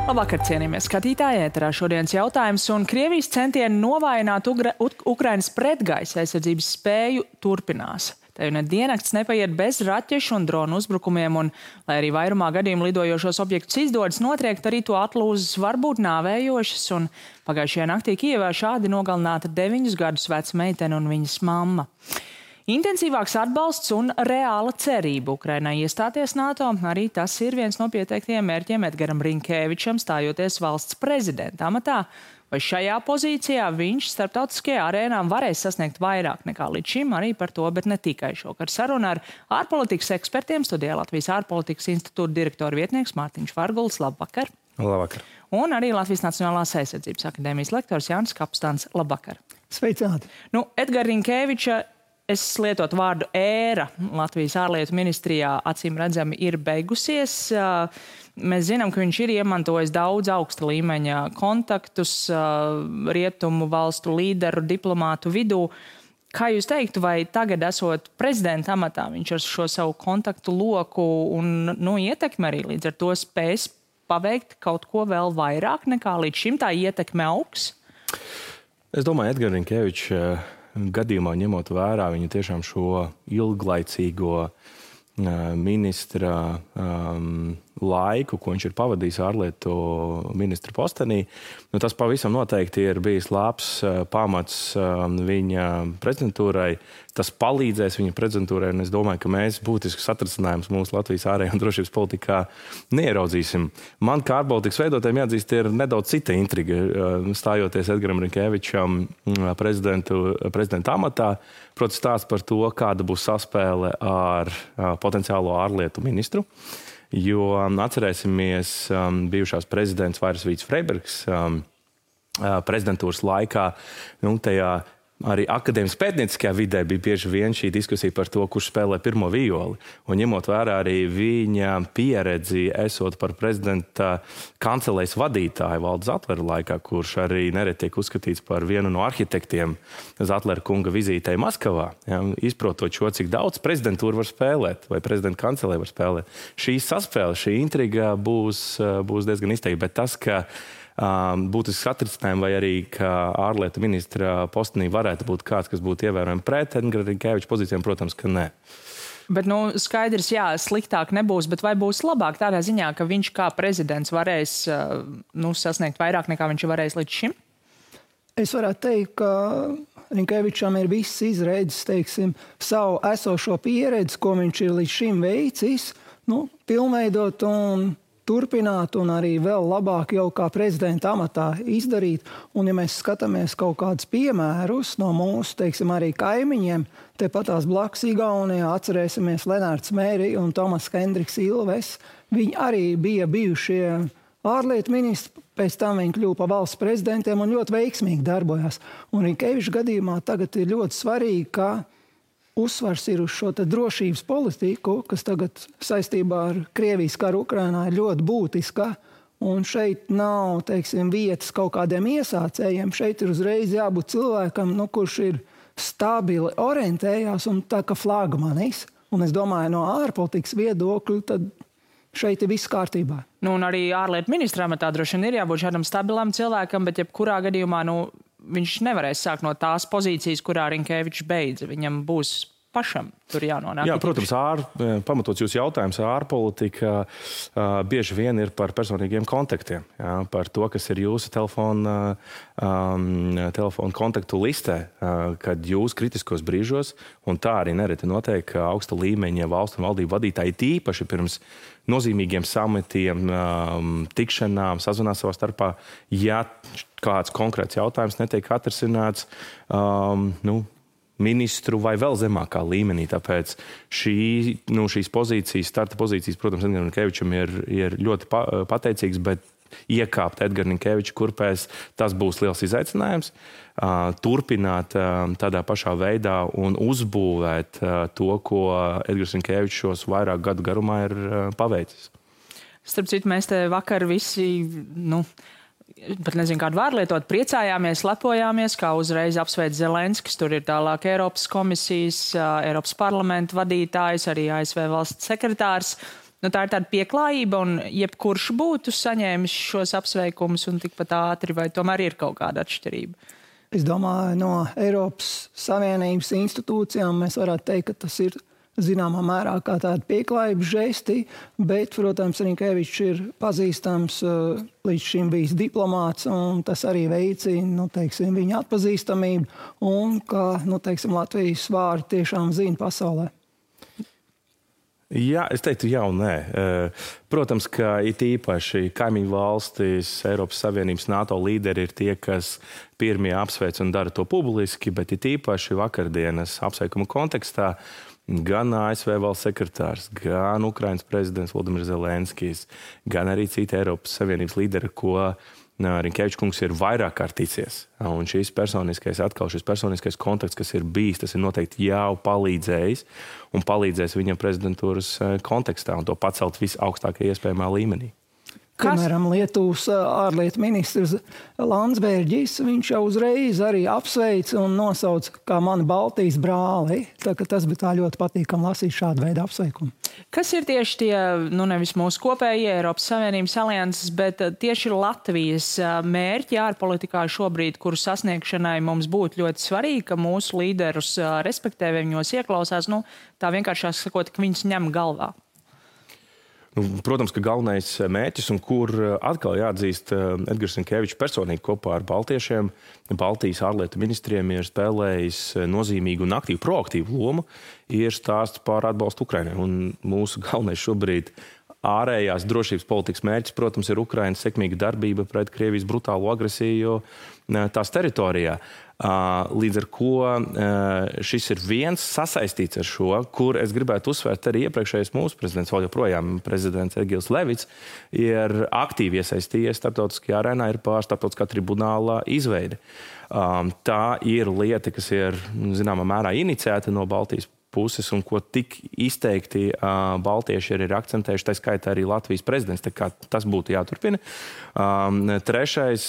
Labvakar, cienījamie skatītāji, ēterā šodienas jautājums un Krievijas centieni novājināt Ukrainas pretgaisa aizsardzības spēju turpinās. Te jau ne diennakts nepaiet bez raķešu un dronu uzbrukumiem, un, lai arī vairumā gadījumu lidojošos objektus izdodas notriekt, arī to atlūzas var būt nāvējošas, un pagājušajā naktī Kijevā šādi nogalināta 9 gadus veca meitene un viņas mamma. Intensīvāks atbalsts un reāla cerība Ukrainai iestāties NATO, arī tas ir viens no pieteiktiem mērķiem Edgaram Rinkēvičam stājoties valsts prezidenta amatā. Vai šajā pozīcijā viņš starptautiskajā arēnā varēs sasniegt vairāk nekā līdz šim, arī par to, bet ne tikai šokar saruna ar ārpolitikas ekspertiem studijā Latvijas ārpolitikas institūta direktora vietnieks Mārtiņš Varguls. Labvakar! Labvakar! Un arī Latvijas Nacionālās aizsardzības akadēmijas lektors Jānis Kapstāns. Labvakar! Sveicināti! Edgara Rinkēviča, es lietotu vārdu ēra Latvijas ārlietu ministrijā acīm redzami ir beigusies. Mēs zinām, ka viņš ir iemantojis daudz augsta līmeņa kontaktus rietumu valstu līderu, diplomātu vidū. Kā jūs teiktu, vai tagad esot prezidenta amatā, viņš ar šo savu kontaktu loku un ietekmi arī līdz ar to spēs paveikt kaut ko vēl vairāk nekā līdz šim, tā ietekme augs? Es domāju, Edgara Rinkēviča gadījumā ņemot vērā viņa tiešām šo ilglaicīgo ministra laiku, ko viņš ir pavadījis ārlietu ministra postenī, tas pavisam noteikti ir bijis labs pamats viņa prezidentūrai. Tas palīdzēs viņa prezidentūrai, un es domāju, ka mēs būtiskus atrasinājumus mūsu Latvijas ārējā un drošības politikā neieraudzīsim. Man kā ārpolitikas veidotājiem jāatzīst, ir nedaudz cita intriga, stājoties Edgaram Rinkēvičam prezidenta amatā. Protams, stāsts par to, kāda būs saspēle ar potenciālo ārlietu ministru. Jo atcerēsimies bijušās prezidents Vairas Vīts Freibergs prezidentūras laikā, tajā arī akadēmiskajā pētnieciskajā vidē bija bieži vien šī diskusija par to, kurš spēlē pirmo violi. Un ņemot vērā arī viņa pieredzi, esot par prezidenta kancelējas vadītāju Valda Zatlera laikā, kurš arī nereti tiek uzskatīts par vienu no arhitektiem Zatlera kunga vizītei Maskavā, izprotot šo, cik daudz prezidentūra var spēlēt, vai prezidenta kancelē var spēlēt. Šī saspēle, šī intriga būs diezgan izteikta, bet tas, ka būtisks atrisinājums vai arī, ka ārlietu ministra postenī varētu būt kāds, kas būtu ievērojami pret Edgara Rinkēviča pozīcijām, protams, ka nē. Bet, skaidrs, sliktāk nebūs, bet vai būs labāk tādā ziņā, ka viņš kā prezidents varēs sasniegt vairāk nekā viņš varēs līdz šim? Es varētu teikt, ka Rinkēvičam ir viss izredzes, savu esošo pieredzi, ko viņš ir līdz šim veicis, pilnveidot un turpināt un arī vēl labāk jau kā prezidenta amatā izdarīt. Un ja mēs skatāmies kaut kādus piemērus no mūsu, arī kaimiņiem, tepatās blakus Igaunijā atcerēsimies Lenārds Mēri un Tomas Hendriks Ilves. Viņi arī bija bijušie ārlietu ministri, pēc tam viņi kļuva par valsts prezidentiem un ļoti veiksmīgi darbojās. Un Rinkēviča gadījumā tagad ir ļoti svarīgi, ka uzsvars ir uz šo drošības politiku, kas tagad saistībā ar Krievijas karu Ukrainā ir ļoti būtiska. Un šeit nav, vietas kaut kādiem iesācējiem. Šeit ir uzreiz jābūt cilvēkam, kurš ir stabili orientējās un tā kā flagmanis. Un es domāju, no ārpolitikas viedokļa, tad šeit ir viss kārtībā. Un arī ārlietu ministra amatā droši vien ir jābūt šādam stabilam cilvēkam, bet jebkurā gadījumā, viņš nevarēs sākt no tās pozīcijas, kurā Rinkēvičs beidza. Viņam būs pašam tur jānonāk. Jā, protams, pamatots jūsu jautājums, ārpolitika bieži vien ir par personīgiem kontaktiem. Par to, kas ir jūsu telefona kontaktu listē, kad jūs kritiskos brīžos, un tā arī nereti notiek augsta līmeņa valstu un valdību vadītāji, tīpaši pirms nozīmīgiem samitiem, tikšanām, sazvanās savā starpā, ja kāds konkrēts jautājums netiek atrisināts, ministru vai vēl zemākā līmenī. Tāpēc šīs pozīcijas, starta pozīcijas, protams, Edgaram Rinkēvičam ir ļoti pateicīgs, bet iekāpt Edgara Rinkēviča kurpēs, tas būs liels izaicinājums. Turpināt tādā pašā veidā un uzbūvēt to, ko Edgars Rinkēvičs šos vairāk gadu garumā ir paveicis. Starp citu, mēs te vakar visi, pat nezinu, kādu vārdu lietot, priecājāmies, lepojāmies, kā uzreiz apsveic Zelenskis. Tur ir tālāk Eiropas komisijas, Eiropas parlamenta vadītājs, arī ASV valsts sekretārs. tā ir tāda pieklājība, un jebkurš būtu saņēmis šos apsveikumus un tikpat ātri, vai tomēr ir kaut kāda atšķirība? Es domāju, no Eiropas Savienības institūcijām mēs varētu teikt, ka tas ir zināmā mērā kā tāda pieklājības žesti, bet, protams, Rinkevičs ir pazīstams, līdz šim bijis diplomāts, un tas arī veicina, viņa atpazīstamību, un ka, Latvijas vārdu tiešām zina pasaulē. Jā, es teiktu jā un nē. Protams, ka it īpaši kaimiņu valstis, Eiropas Savienības NATO līderi ir tie, kas pirmie apsveic un dara to publiski, bet it īpaši vakardienas apsveikuma kontekstā gan ASV valsts sekretārs, gan Ukrainas prezidents Volodimirs Zelenskijs, gan arī citi Eiropas Savienības līderi, ko Rinkevičs kungs ir vairāk kārt ticies. Un šis personiskais kontakts, kas ir bijis, tas ir noteikti jau palīdzējis un palīdzēs viņam prezidentūras kontekstā un to pacelt visaugstākajā iespējamā līmenī. Piemēram, Lietuvas ārlietu ministrs Landsbergis, viņš jau uzreiz arī apsveica un nosauca kā mani Baltijas brāli. Tā ka tas bija tā ļoti patīkami lasīt šādu veidu apsveikumu. Kas ir tieši tie, nevis mūsu kopējie Eiropas Savienības alianses, bet tieši Latvijas mērķi ārpolitikā šobrīd, kuru sasniegšanai mums būtu ļoti svarīgi, ka mūsu līderus respektē, viņos ieklausās, tā vienkāršāk sakot, ka viņus ņem galvā? Protams, ka galvenais mērķis, un kur atkal jāatzīst Edgars Rinkevičs personīgi kopā ar baltiešiem, Baltijas ārlietu ministriem ir spēlējis nozīmīgu un aktīvu, proaktīvu lomu, ir stāsts par atbalstu Ukrainai. Un mūsu galvenais šobrīd ārējās drošības politikas mērķis, protams, ir Ukrainas sekmīga darbība pret Krievijas brutālo agresiju tās teritorijā. Līdz ar ko šis ir viens sasaistīts ar šo, kur es gribētu uzsvērt arī iepriekšējais mūsu prezidents, vēl joprojām prezidents Egils Levits, ir aktīvi iesaistījies starptautiskajā arēnā, ir pār starptautiskā tribunāla izveide. Tā ir lieta, kas ir zināmā mērā iniciēta no Baltijas puses un ko tik izteikti baltieši ir akcentējuši, tā skaitā arī Latvijas prezidents, tā kā tas būtu jāturpina. Trešais,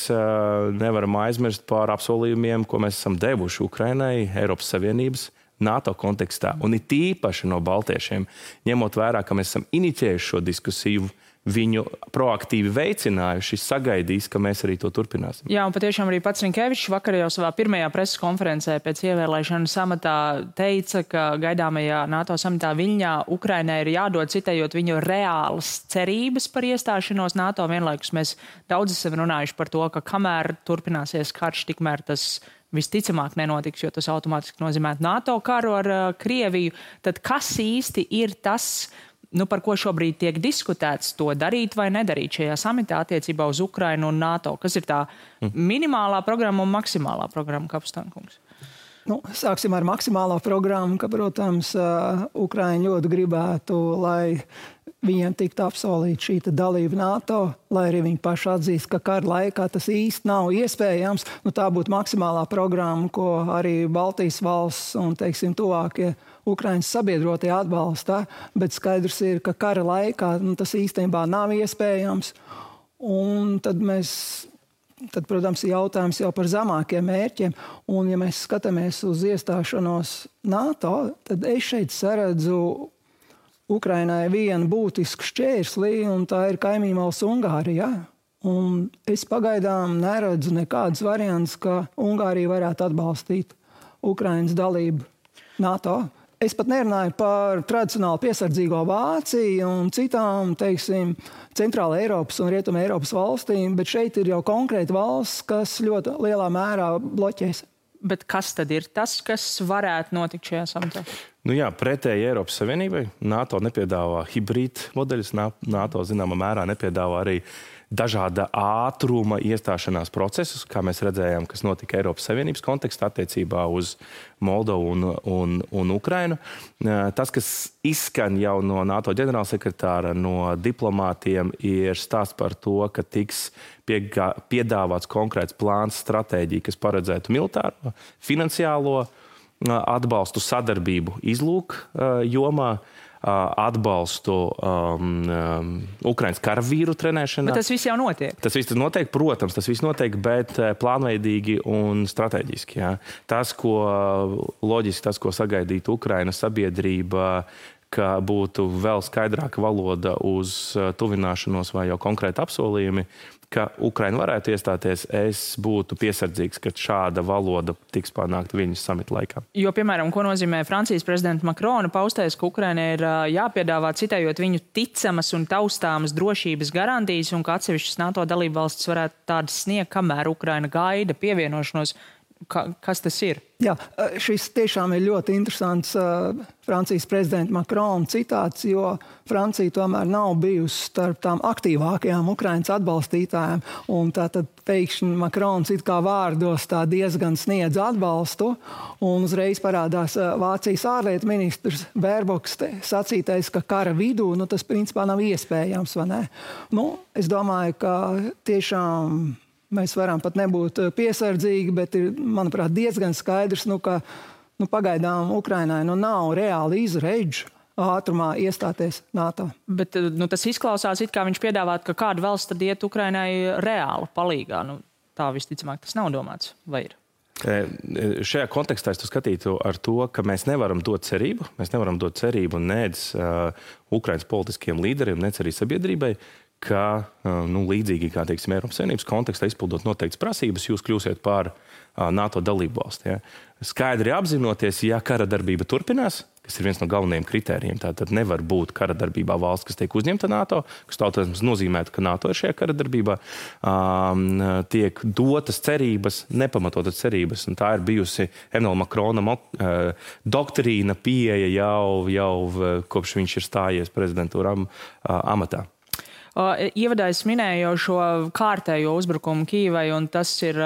nevaram aizmirst par apsolījumiem, ko mēs esam devuši Ukrainai, Eiropas Savienības, NATO kontekstā, un it īpaši no baltiešiem, ņemot vērā, ka mēs esam inicijējuši šo diskusiju, viņu proaktīvi veicinājuši, sagaidīs, ka mēs arī to turpināsim. Jā, un patiešām arī pats Rinkevičs vakar jau savā pirmajā preses konferencē pēc ievēlēšanas amatā teica, ka gaidāmajā NATO samitā Viļņā Ukrainai ir jādod, citējot viņu reālas cerības par iestāšanos NATO. Vienlaikus mēs daudz esam runājuši par to, ka kamēr turpināsies karš, tikmēr tas visticamāk nenotiks, jo tas automātiski nozīmē NATO karu ar Krieviju. Tad kas īsti ir tas, par ko šobrīd tiek diskutēts, to darīt vai nedarīt šajā samitā attiecībā uz Ukrainu un NATO? Kas ir tā minimālā programma un maksimālā programma, Kapustānkungs? Sāksim ar maksimālo programmu, ka, protams, Ukraiņi ļoti gribētu, lai viņiem tiktu apsolīta šī dalība NATO, lai arī viņi paši atzīst, ka kara laikā tas īsti nav iespējams. Tā būtu maksimālā programma, ko arī Baltijas valsts un, tuvākie Ukrainas sabiedrotie atbalsta, bet skaidrs ir, ka kara laikā tas īstenībā nav iespējams. Un tad, protams, ir jautājums jau par zemākiem mērķiem. Un, ja mēs skatāmies uz iestāšanos NATO, tad es šeit saredzu Ukrainai vienu būtisku šķērsli, un tā ir kaimiņu valsts Ungārija. Un es pagaidām neredzu nekādas variantus, ka Ungārija varētu atbalstīt Ukrainas dalību NATO. Es pat nerunāju par tradicionāli piesardzīgo Vāciju un citām, Centrāla Eiropas un Rietuma Eiropas valstīm, bet šeit ir jau konkrēti valsts, kas ļoti lielā mērā bloķēs. Bet kas tad ir tas, kas varētu notikt šajā samitā? Pretēji Eiropas Savienībai NATO nepiedāvā hibrīd modeļus, NATO zināmā mērā nepiedāvā arī dažāda ātruma iestāšanās procesus, kā mēs redzējām, kas notika Eiropas Savienības kontekstā attiecībā uz Moldovu un Ukrainu. Tas, kas izskan jau no NATO ģenerālsekretāra, no diplomātiem, ir stāsts par to, ka tiks piedāvāts konkrēts plāns, stratēģija, kas paredzētu militāro, finansiālo atbalstu, sadarbību izlūk jomā, atbalstu Ukrainas karavīru trenēšanā. Bet tas viss jau notiek? Tas viss notiek, protams, tas viss notiek, bet plānveidīgi un strateģiski. Jā. Tas, ko loģiski, tas, ko sagaidītu Ukrainas sabiedrība, ka būtu vēl skaidrāka valoda uz tuvināšanos vai jau konkrēti apsolījumi, ka Ukraina varētu iestāties, es būtu piesardzīgs, ka šāda valoda tiks panākta viņas samita laikā. Jo, piemēram, ko nozīmē Francijas prezidenta Makrona paustais, ka Ukrainai ir jāpiedāvā, citējot viņu ticamas un taustāmas drošības garantijas un ka atsevišķas NATO dalībvalstis varētu tādas sniegt, kamēr Ukraina gaida pievienošanos. Kas tas ir? Jā, šis tiešām ir ļoti interesants Francijas prezidenta Makrona citāts, jo Francija tomēr nav bijusi starp tām aktīvākajām Ukrainas atbalstītājām. Un tātad pēkšņi Makrons it kā vārdos tā diezgan sniedz atbalstu. Un uzreiz parādās Vācijas ārlietu ministrs Bērboks sacītais, ka kara vidū tas principā nav iespējams, vai ne? Es domāju, ka tiešām mēs varam pat nebūt piesardzīgi, bet ir, manuprāt, diezgan skaidrs, ka pagaidām Ukrainai nav reāli izredžu ātrumā iestāties NATO. Bet tas izklausās, it kā viņš piedāvāt, ka kāda valsts tad iet Ukrainai reāli palīgā. Tā visticamāk tas nav domāts, vai ir? Šajā kontekstā es to skatītu ar to, ka mēs nevaram dot cerību. Mēs nevaram dot cerību nec Ukrainas politiskiem līderiem, nec arī sabiedrībai, ka līdzīgi kā, teiksim, Eiropas Savienības kontekstā izpildot noteiktas prasības, jūs kļūsiet par NATO dalību valsti. Ja? Skaidri apzinoties, ja kara darbība turpinās, kas ir viens no galvenajiem kritērijiem, tad nevar būt kara darbībā valsts, kas tiek uzņemta NATO, kas tautas nozīmētu, ka NATO ir šajā kara darbībā, tiek dotas cerības, nepamatotas cerības, un tā ir bijusi Emmanuela Macrona doktrīna pieeja jau kopš viņš ir stājies prezidentūra amatā. Ievadā es minēju jau šo kārtējo uzbrukumu Kīvai, un tas ir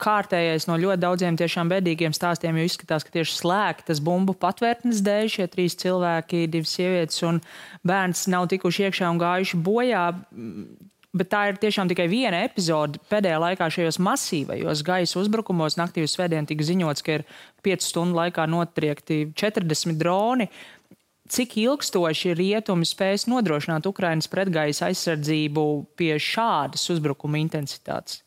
kārtējais no ļoti daudziem tiešām bēdīgiem stāstiem, jo izskatās, ka tieši slēgtas bumbu patvērtnes dēļ šie 3 cilvēki, 2 sievietes un bērns nav tikuši iekšā un gājuši bojā. Bet tā ir tiešām tikai viena epizode. Pēdējā laikā šajos masīvajos gaisa uzbrukumos naktī uz svētdienu tika ziņots, ka ir 5 stundu laikā notriekti 40 droni. Cik ilgstoši rietumi spēs nodrošināt Ukrainas pretgaisa aizsardzību pie šādas uzbrukuma intensitātes?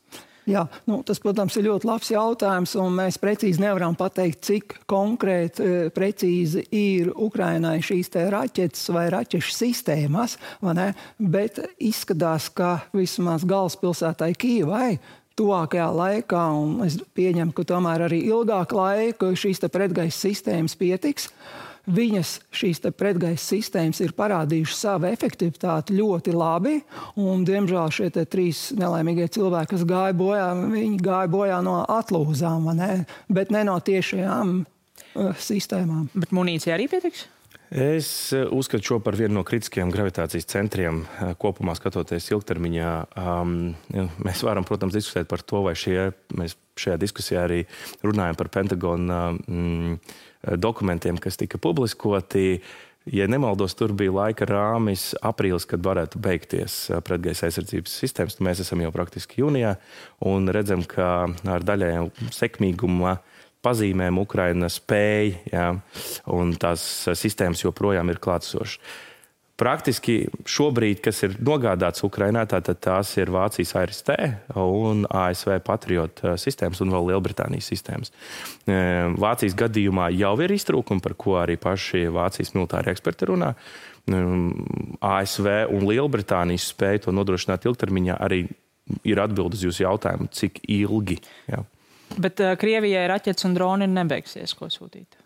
Jā, tas, protams, ir ļoti labs jautājums, un mēs precīzi nevaram pateikt, cik konkrēti precīzi ir Ukrainai šīs te raķetes vai raķešu sistēmas, vai ne? Bet izskatās, ka vismaz galvaspilsētai Kīvai tuvākajā laikā, un es pieņemu, ka tomēr arī ilgāk laika šīs te pretgaisa sistēmas pietiks. Viņas šīs pretgaisa sistēmas ir parādījušas savu efektivitāti ļoti labi, un, diemžēl, šie 3 nelaimīgie cilvēki, kas gāja bojā, viņi gāja bojā no atlūzām, bet ne no tiešajām sistēmām. Bet munīcija arī pietiks? Es uzskatu šo par vienu no kritiskajiem gravitācijas centriem kopumā skatoties ilgtermiņā. Mēs varam, protams, diskutēt par to, vai mēs šajā diskusijā arī runājam par Pentagona dokumentiem, kas tika publiskoti. Ja nemaldos, tur bija laika rāmis aprīlis, kad varētu beigties pretgaisa aizsardzības sistēmas. Mēs esam jau praktiski jūnijā un redzam, ka ar daļai sekmīguma pazīmēm Ukraina spēja, ja, un tās sistēmas joprojām ir klātsošas. Praktiski šobrīd, kas ir nogādāts Ukrainā, tātad tās ir Vācijas ARST un ASV Patriot sistēmas un vēl Lielbritānijas sistēmas. Vācijas gadījumā jau ir iztrūkumi, par ko arī paši Vācijas militāri eksperti runā. ASV un Lielbritānijas spēja to nodrošināt ilgtermiņā arī ir atbildes uz jūsu jautājumu, cik ilgi. Jā. Bet Krievijai raķetes un droni nebeigsies, ko sūtīt?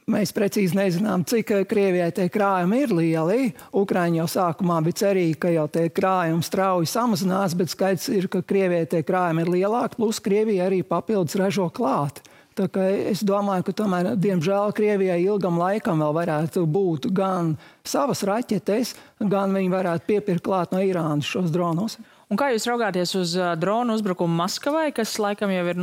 Mēs precīzi nezinām, cik Krievijai tie krājumi ir lieli. Ukraiņi jau sākumā bija cerīgi, ka jau tie krājumi strauji samazinās, bet skaidrs ir, ka Krievijai tie krājumi ir lielāki, plus Krievija arī papildus ražo klāt. Tā kā es domāju, ka tomēr, diemžēl, Krievijai ilgam laikam vēl varētu būt gan savas raķetes, gan viņi varētu piepirkt klāt no Irānas šos dronus. Un kā jūs raugāties uz dronu uzbrukumu Maskavai, kas laikam jau ir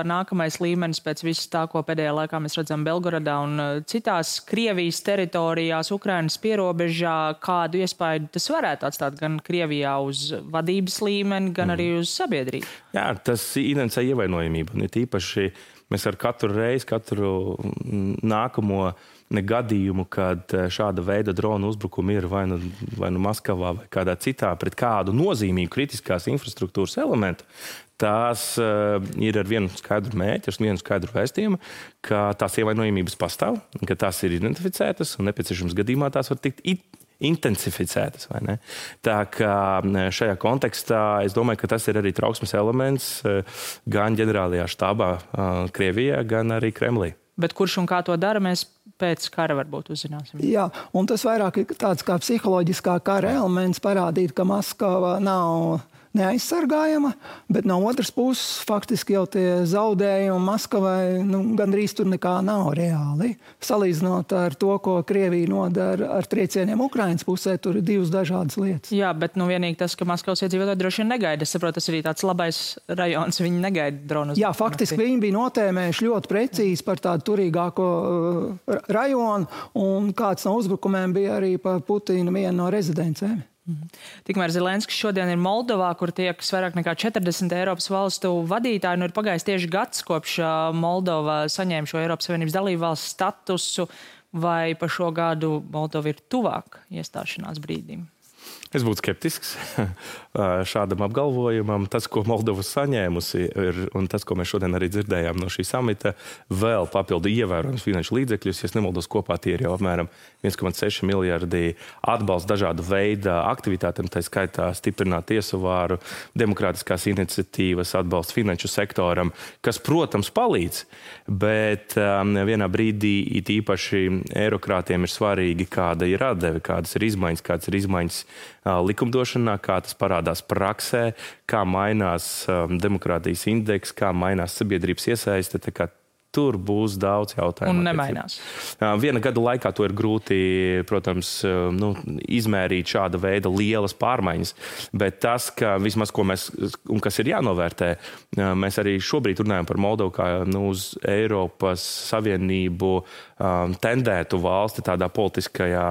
nākamais līmenis pēc visu tā, ko pēdējā laikā mēs redzam Belgorodā un citās Krievijas teritorijās, Ukrainas pierobežā, kādu iespēju tas varētu atstāt gan Krievijā uz vadības līmeni, gan arī uz sabiedrību? Jā, tas identificē ievainojamību. Un ir tīpaši mēs ar katru reizi, katru nākamo gadījumu, kad šāda veida drona uzbrukumi ir vai nu Maskavā vai kādā citā pret kādu nozīmīgu kritiskās infrastruktūras elementu, tās ir ar vienu skaidru mērķi, ar vienu skaidru vēstījumu, ka tās ievainojamības pastāv, ka tās ir identificētas un nepieciešams gadījumā tās var tikt intensificētas, vai ne? Tā kā šajā kontekstā es domāju, ka tas ir arī trauksmes elements gan ģenerālajā štābā Krievijā, gan arī Kremlī. Bet kurš un kā to dara, mēs pēc kara varbūt uzzināsim. Jā, un tas vairāk ir tāds kā psiholoģiskā kara elements parādīt, ka Maskava nav neaizsargājama, bet no otras puses faktiski jau tie zaudējumi Maskavai gandrīz tur nekā nav reāli. Salīdzinot ar to, ko Krievija nodara ar triecieniem Ukrainas pusē, tur ir divas dažādas lietas. Jā, bet vienīgi tas, ka Maskavas iedzīvotāji droši vien negaida. Es saprotu, tas arī tāds labais rajons, viņi negaida dronus. Jā, faktiski viņi bija notēmējuši ļoti precīzi par tādu turīgāko rajonu, un kāds no uzbrukumiem bija arī pa Putina vienu no rezidencēm. Tikmēr Zelenskis šodien ir Moldovā, kur tiekas vairāk nekā 40 Eiropas valstu vadītāji. Ir pagājis tieši gads, kopš Moldova saņēma šo Eiropas Savienības dalību valsts statusu, vai pa šo gadu Moldova ir tuvāk iestāšanās brīdim? Es būtu skeptisks šādam apgalvojumam. Tas, ko Moldova saņēmusi, un tas, ko mēs šodien arī dzirdējām no šī samita, vēl papildu ievērojams finanšu līdzekļus. Ja nemaldos, kopā tie ir jau apmēram 1,6 miljardi atbalsts dažādu veidu aktivitātēm, tā skaitā stiprināt tiesu vāru, demokrātiskās iniciatīvas, atbalsts finanšu sektoram, kas, protams, palīdz, bet vienā brīdī it īpaši eirokrātiem ir svarīgi, kāda ir atdeve, kādas ir izmaiņas likumdošanā, kā tas parādās praksē, kā mainās demokrātijas indeks, kā mainās sabiedrības iesaiste. Tur būs daudz jautājumu. Un nemainās. Viena gada laikā to ir grūti, protams, izmērīt šāda veida lielas pārmaiņas, bet tas, ka vismaz, ko mēs, un kas ir jānovērtē, mēs arī šobrīd runājam par Moldovu kā uz Eiropas Savienību tendētu valsti tādā politiskajā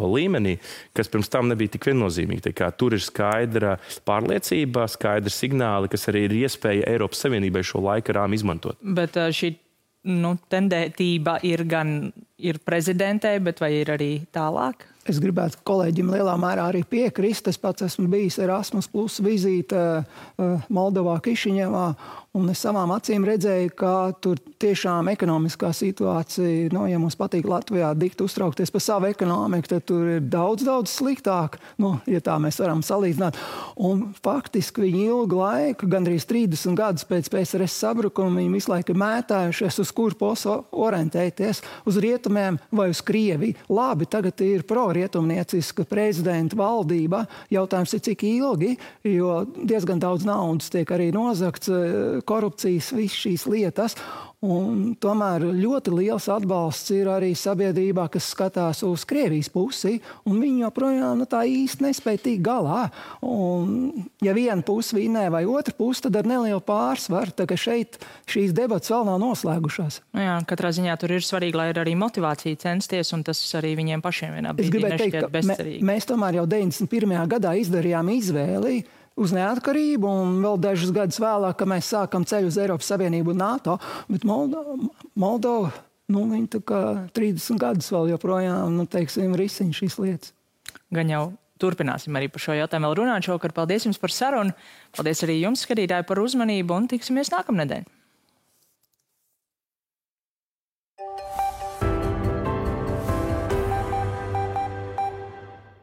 līmenī, kas pirms tam nebija tik viennozīmīgi. Tur ir skaidra pārliecība, skaidri signāli, kas arī ir iespēja Eiropas Savienībai šo laika rāmu izmantot. Bet šī tendētība ir prezidentei, bet vai ir arī tālāk? Es gribētu kolēģim lielā mērā arī piekrist. Es pats esmu bijis Erasmus Plus vizīte Moldovā, Kišiņevā, un es savām acīm redzēju, ka tur tiešām ekonomiskā situācija, ja mums patīk Latvijā dikt uztraukties par savu ekonomiku, tad tur ir daudz sliktāk, ja tā mēs varam salīdzināt. Un faktiski viņi ilgu laiku, gandrīz 30 gadus pēc PSRS sabrukuma, viņi visu laiku mētājušies, uz kur posu orientēties, uz rietumiem vai uz Krieviju. Labi, tagad ir pro-rietumnieciska prezidenta valdība. Jautājums ir, cik ilgi, jo diezgan daudz naudas tiek arī nozagts, korupcijas, visas šīs lietas. Un tomēr ļoti liels atbalsts ir arī sabiedrībā, kas skatās uz Krievijas pusi, un viņi joprojām tā īsti nespēja tikt galā. Un, ja viena puse vinnē vai otra puse, tad ar nelielu pārsvaru, tā ka šeit šīs debatas vēl nav noslēgušās. Jā, katrā ziņā tur ir svarīgi, lai ir arī motivācija censties, un tas arī viņiem pašiem vienā brīdī nešķiet bezcerīgi. Mēs tomēr jau 91. gadā izdarījām izvēli uz neatkarību, un vēl dažus gadus vēlāk, kad mēs sākam ceļu uz Eiropas Savienību un NATO, bet Moldova, viņi tā kā 30 gadus vēl joprojām, risina šīs lietas. Gan jau turpināsim arī par šo jautājumu vēl runāt šovakar. Paldies jums par sarunu. Paldies arī jums, skatītāji, par uzmanību, un tiksimies nākamnedēļ.